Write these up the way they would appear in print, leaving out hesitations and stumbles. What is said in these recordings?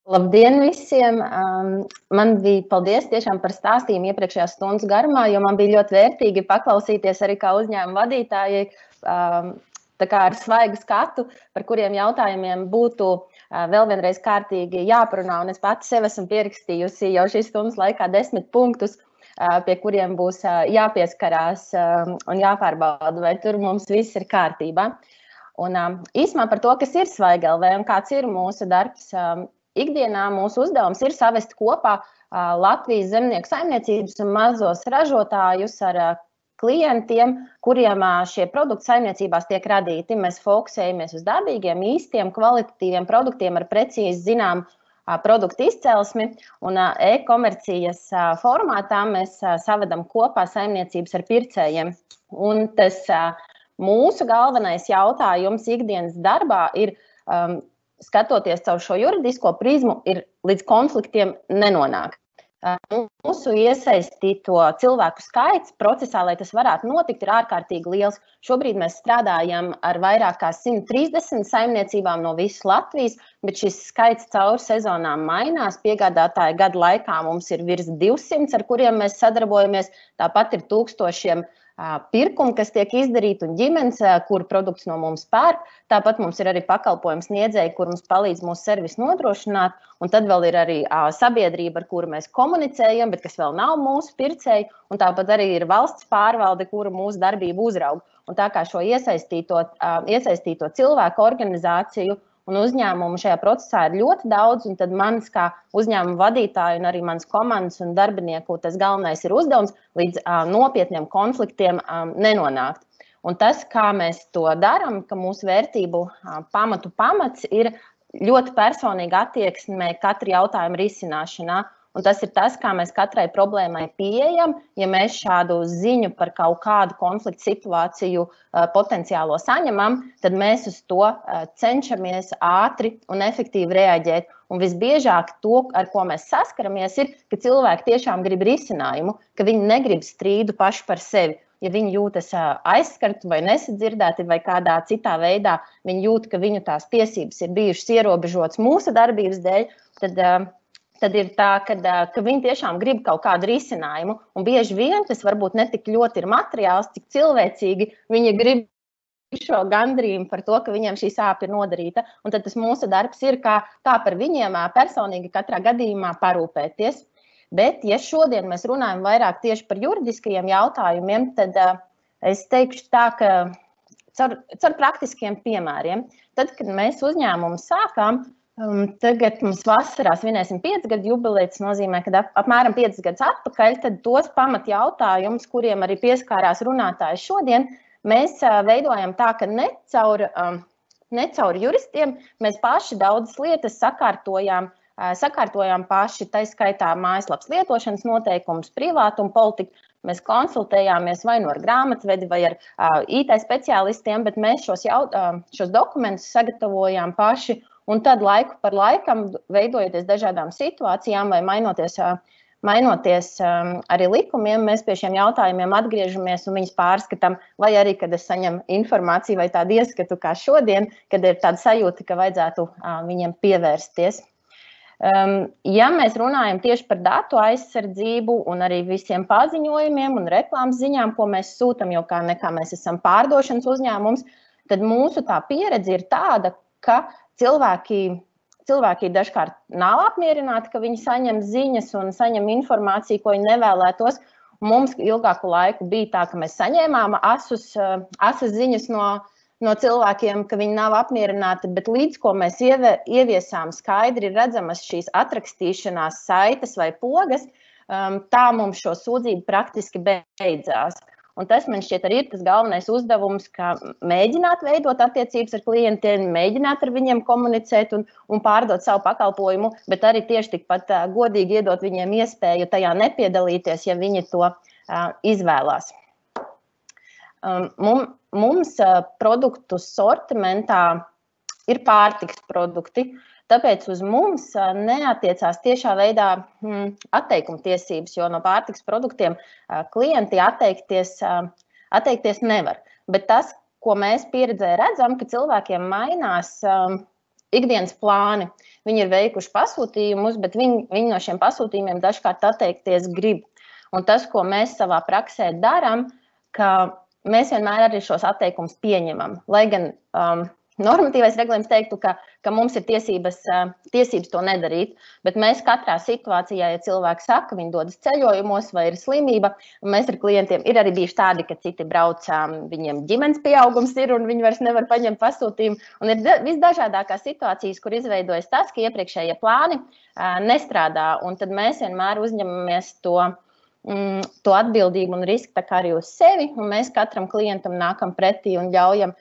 Labdien visiem! Man bija paldies tiešām par stāstījumu iepriekšējās stundas garumā, jo man bija ļoti vērtīgi paklausīties arī kā uzņēmuma vadītājai, tā kā ar svaigu skatu, par kuriem jautājumiem būtu vēl vienreiz kārtīgi jāparunā. Un es pati sev esmu pierakstījusi jau šīs stundas laikā 10 punktus, pie kuriem būs jāpieskarās un jāpārbauda, vai tur mums viss ir kārtībā. Un īsumā par to, kas ir Svaigi LV un kāds ir mūsu darbs. Ikdienā mūsu uzdevums ir savest kopā Latvijas zemnieku saimniecības un mazos ražotājus ar klientiem, kuriem šie produkti saimniecībās tiek radīti. Mēs fokusējamies uz dabīgiem, īstiem, kvalitatīviem produktiem ar precīzi zinām produktu izcelsmi. Un e-komercijas formātā mēs savedam kopā saimniecības ar pircējiem. Un tas mūsu galvenais jautājums ikdienas darbā ir skatoties caur šo juridisko prizmu, ir līdz konfliktiem nenonākt. Mūsu iesaistīto cilvēku skaits procesā, lai tas varētu notikt, ir ārkārtīgi liels. Šobrīd mēs strādājam ar vairāk kā 130 saimniecībām no visas Latvijas, bet šis skaits caur sezonām mainās. Piegādātāju gadu laikā mums ir virs 200, ar kuriem mēs sadarbojamies. Tāpat ir tūkstošiem pirkumu, kas tiek izdarīti, un ģimenes, kur produkts no mums pērk. Tāpat mums ir arī pakalpojums sniedzēji, kur mums palīdz mūsu servisu nodrošināt. Un tad vēl ir arī sabiedrība, ar kuru mēs komunicējam, bet kas vēl nav mūsu pircēji. Un tāpat arī ir valsts pārvalde, kura mūsu darbību uzrauga. Un tā kā šo iesaistīto cilvēku organizāciju un uzņēmumu šajā procesā ir ļoti daudz, un tad manis kā uzņēmuma vadītāja un arī manas komandas un darbinieku tas galvenais ir uzdevums līdz nopietniem konfliktiem nenonākt. Un tas, kā mēs to darām, ka mūsu vērtību pamats ir ļoti personīga attieksme katra jautājuma risināšanā. Un tas ir tas, kā mēs katrai problēmai pieejam. Ja mēs šādu ziņu par kaut kādu konfliktu situāciju potenciālo saņemam, tad mēs uz to cenšamies ātri un efektīvi reaģēt. Un visbiežāk to, ar ko mēs saskaramies, ir, ka cilvēki tiešām grib risinājumu, ka viņi negrib strīdu paši par sevi. Ja viņi jūtas aizskarti vai nesadzirdēti vai kādā citā veidā, viņi jūt, ka viņu tās tiesības ir bijušas ierobežotas mūsu darbības dēļ, tad ir tā, ka viņi tiešām grib kaut kādu risinājumu. Un bieži vien tas varbūt ne tik ļoti ir materiāls, cik cilvēcīgi viņi grib šo gandrījumu par to, ka viņiem šī sāpe ir nodarīta. Un tad tas mūsu darbs ir, kā par viņiem personīgi katrā gadījumā parūpēties. Bet, ja šodien mēs runājam vairāk tieši par juridiskajiem jautājumiem, tad es teikšu tā, ka caur praktiskiem piemēriem, tad, kad mēs uzņēmumu sākām, tagad mums vasarā svinēsim 5 gadu jubileju, tas nozīmē, ka apmēram 5 gadus atpakaļ, tad tos pamatjautājumus, kuriem arī pieskārās runātāji šodien, mēs veidojam tā, ka ne caur juristiem mēs paši daudzas lietas sakārtojām paši, tā skaitā mājaslapas lietošanas noteikumus, privātumu politiku. Mēs konsultējāmies vai nu ar grāmatvedi vai ar IT speciālistiem, bet mēs šos dokumentus sagatavojām paši. Un tad laiku par laikam, veidojoties dažādām situācijām vai mainoties arī likumiem, mēs pie šiem jautājumiem atgriežamies un viņus pārskatām, vai arī, kad es saņemu informāciju vai tādu ieskatu kā šodien, kad ir tāda sajūta, ka vajadzētu viņiem pievērsties. Ja mēs runājam tieši par datu aizsardzību un arī visiem paziņojumiem un reklāmas ziņām, ko mēs sūtam, jo kā nekā mēs esam pārdošanas uzņēmums, tad mūsu tā pieredze ir tāda, ka cilvēki dažkārt nav apmierināti, ka viņi saņem ziņas un saņem informāciju, ko viņi nevēlētos. Mums ilgāku laiku bija tā, ka mēs saņēmām asas ziņas no cilvēkiem, ka viņi nav apmierināti, bet līdz ko mēs ieviesām skaidri redzamas šīs atrakstīšanās saites vai pogas, tā mums šo sūdzību praktiski beidzās. Un tas man šķiet arī ir tas galvenais uzdevums, ka mēģināt veidot attiecības ar klientiem, mēģināt ar viņiem komunicēt un pārdot savu pakalpojumu, bet arī tieši tikpat godīgi iedot viņiem iespēju tajā nepiedalīties, ja viņi to izvēlās. Mums produktu sortimentā ir pārtikas produkti, tāpēc uz mums neatiecās tiešā veidā atteikuma tiesības, jo no pārtikas produktiem klienti atteikties nevar. Bet tas, ko mēs pieredzē redzam, ka cilvēkiem mainās ikdienas plāni. Viņi ir veikuši pasūtījumus, bet viņi no šiem pasūtījumiem dažkārt atteikties grib. Un tas, ko mēs savā praksē darām, ka mēs vienmēr arī šos atteikumus pieņemam. Lai gan normatīvais regulējums teiktu, ka mums ir tiesības to nedarīt, bet mēs katrā situācijā, ja cilvēki saka, viņi dodas ceļojumos vai ir slimība, un mēs ar klientiem ir arī bijuši tādi, ka citi brauc, viņiem ģimenes pieaugums ir, un viņi vairs nevar paņemt pasūtījumu. Un ir visdažādākās situācijas, kur izveidojas tas, ka iepriekšējie plāni nestrādā, un tad mēs vienmēr uzņemamies to atbildību un risku tā kā arī uz sevi, un mēs katram klientam nākam pretī un ļaujam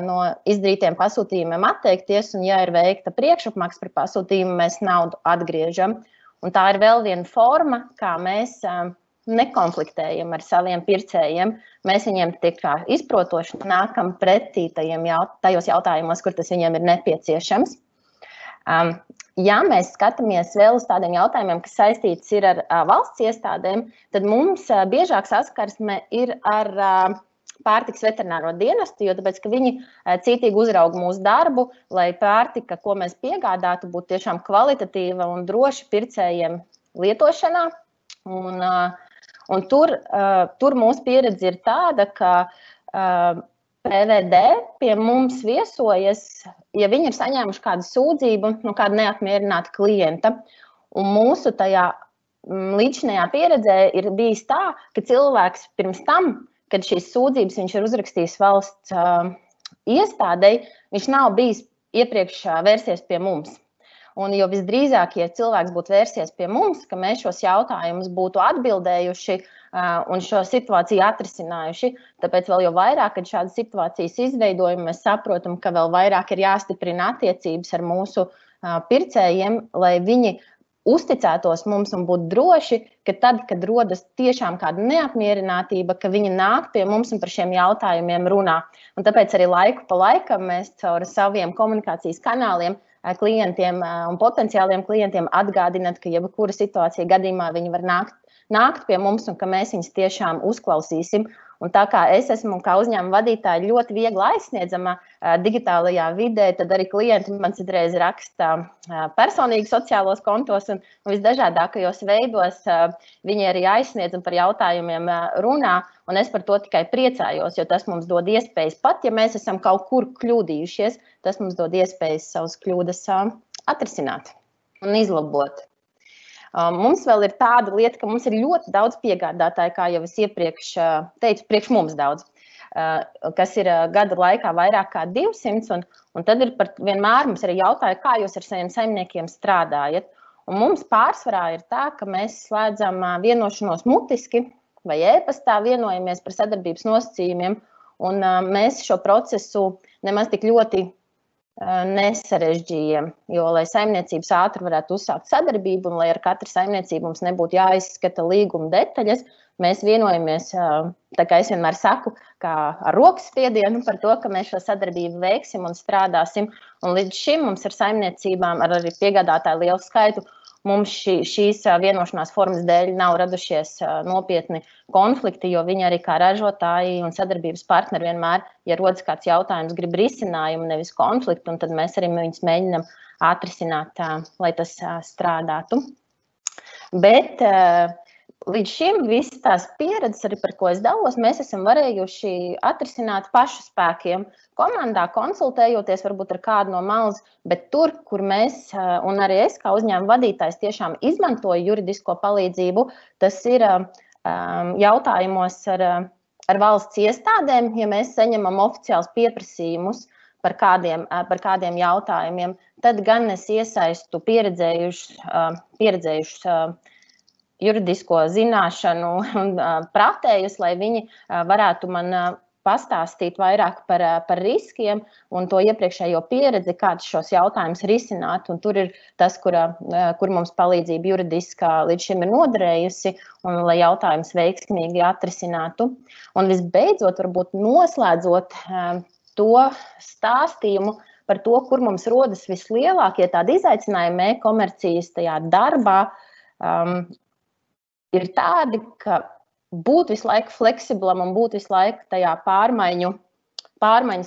no izdarītiem pasūtījumiem atteikties, un ja ir veikta priekšapmaksa par pasūtījumu, mēs naudu atgriežam. Un tā ir vēl viena forma, kā mēs nekonfliktējam ar saviem pircējiem. Mēs viņiem tik kā izprotoši nākam pretī tajos jautājumos, kur tas viņiem ir nepieciešams. Ja mēs skatāmies vēl uz tādiem jautājumiem, kas saistīts ir ar valsts iestādēm, tad mums biežāk saskarsme ir ar pārtikas veterināro dienestu, jo tāpēc, ka viņi cītīgi uzrauga mūsu darbu, lai pārtika, ko mēs piegādātu, būtu tiešām kvalitatīva un droši pircējiem lietošanā. Un tur mūsu pieredze ir tāda, ka PVD pie mums viesojas, ja viņi ir saņēmuši kādu sūdzību no kāda neapmierināta klienta. Un mūsu tajā līdzinājā pieredzē ir bijis tā, ka cilvēks pirms tam, kad šīs sūdzības viņš ir uzrakstījis valsts iestādei, viņš nav bijis iepriekš vērsies pie mums. Un jo visdrīzāk, ja cilvēks būtu vērsies pie mums, ka mēs šos jautājumus būtu atbildējuši un šo situāciju atrisinājuši, tāpēc vēl jau vairāk, kad šādas situācijas izveidojam, mēs saprotam, ka vēl vairāk ir jāstiprina attiecības ar mūsu pircējiem, lai viņi uzticētos mums un būtu droši, ka tad, kad rodas tiešām kāda neapmierinātība, ka viņi nāk pie mums un par šiem jautājumiem runā. Un tāpēc arī laiku pa laikam mēs caur saviem komunikācijas kanāliem klientiem un potenciāliem klientiem atgādināt, ka jebkura situācija gadījumā viņi var nākt pie mums un ka mēs viņus tiešām uzklausīsim. Un tā kā es esmu kā uzņēmuma vadītāja ļoti viegli aizsniedzama digitālajā vidē, tad arī klienti man citreiz raksta personīgi sociālos kontos un visdažādākajos veidos viņi arī aizsniedz un par jautājumiem runā. Un es par to tikai priecājos, jo tas mums dod iespējas, pat ja mēs esam kaut kur kļūdījušies, tas mums dod iespējas savas kļūdas atrisināt un izlabot. Mums vēl ir tāda lieta, ka mums ir ļoti daudz piegādātāju, kā jau es iepriekš teicu, priekš mums daudz, kas ir gada laikā vairāk kā 200, un tad ir vienmēr mums arī jautāja, kā jūs ar saviem saimniekiem strādājat. Un mums pārsvarā ir tā, ka mēs slēdzam vienošanos mutiski vai e-pastā vienojamies par sadarbības nosacījumiem, un mēs šo procesu nemaz tik ļoti nesarežģījam, jo, lai saimniecības ātri varētu uzsākt sadarbību un lai ar katru saimniecību mums nebūtu jāizskata līguma detaļas, mēs vienojamies, tā kā es vienmēr saku, kā ar rokas spiedienu par to, ka mēs šo sadarbību veiksim un strādāsim. Un līdz šim mums ar saimniecībām, ar arī piegādātāju lielu skaitu, mums šīs vienošanās formas dēļ nav radušies nopietni konflikti, jo viņi arī kā ražotāji un sadarbības partneri vienmēr, ja rodas kāds jautājums, grib risinājumu, nevis konfliktu, un tad mēs arī viņus mēģinam atrisināt, lai tas strādātu. Bet līdz šim visas tās pieredzes, arī par ko es dalos, mēs esam varējuši atrisināt pašu spēkiem, komandā, konsultējoties varbūt ar kādu no malas, bet tur, kur mēs, un arī es kā uzņēmuma vadītājs tiešām izmantoju juridisko palīdzību, tas ir jautājumos ar valsts iestādēm, ja mēs saņemam oficiāls pieprasījumus par kādiem jautājumiem, tad gan es iesaistu pieredzējušus juridisko zināšanu un pratējus, lai viņi varētu man pastāstīt vairāk par riskiem un to iepriekšējo pieredzi, kāds šos jautājumus risināt. Un tur ir tas, kur mums palīdzība juridiskā līdz šim ir noderējusi, un lai jautājums veiksmīgi atrisinātu. Un visbeidzot, varbūt noslēdzot to stāstījumu par to, kur mums rodas vislielākie tādi izaicinājumi e-komercijas tajā darbā, ir tādi, ka būt visu laiku fleksiblam un būt visu laiku tajā pārmaiņu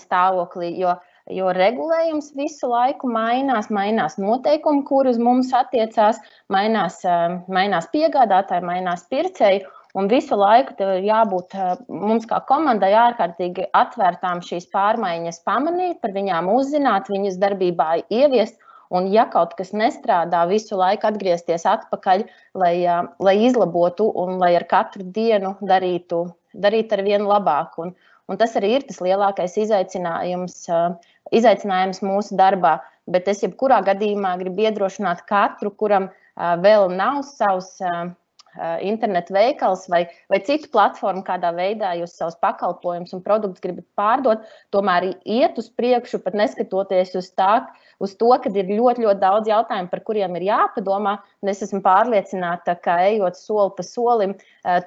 stāvoklī, jo jo regulējums visu laiku mainās noteikumi, kur uz mums attiecās, mainās piegādātāji, mainās pircēji. Un visu laiku tev ir jābūt mums kā komandai ārkārtīgi atvērtām šīs pārmaiņas pamanīt, par viņām uzzināt, viņas darbībā ieviest. Un ja kaut kas nestrādā, visu laiku atgriezties atpakaļ, lai izlabotu un lai ar katru dienu darītu ar vienu labāku. Un tas arī ir tas lielākais izaicinājums mūsu darbā. Bet es jebkurā gadījumā gribu iedrošināt katru, kuram vēl nav savs internetu veikals vai citu platformu, kādā veidā jūs savus pakalpojumus un produktus gribat pārdot, tomēr iet uz priekšu, pat neskatoties uz to, ka ir ļoti, ļoti daudz jautājumu, par kuriem ir jāpadomā. Un es esmu pārliecināta, ka ejot soli pa solim,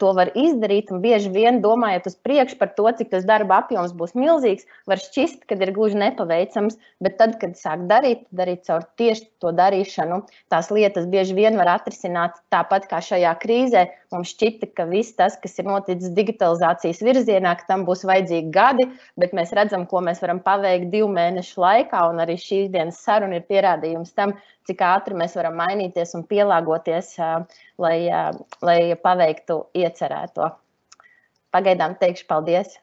to var izdarīt. Un bieži vien domājot uz priekšu par to, cik tas darba apjoms būs milzīgs, var šķist, ka ir gluži nepaveicams. Bet tad, kad sāk darīt caur tieši to darīšanu, tās lietas bieži vien var atrisināt tāpat kā šajā krīzē. Mums šķita, ka viss tas, kas ir noticis digitalizācijas virzienā, ka tam būs vajadzīgi gadi, bet mēs redzam, ko mēs varam paveikt 2 mēnešu laikā, un arī šīs dienas saruna ir pierādījums tam, cik ātri mēs varam mainīties un pielāgoties, lai paveiktu iecerēto. Pagaidām teikšu paldies!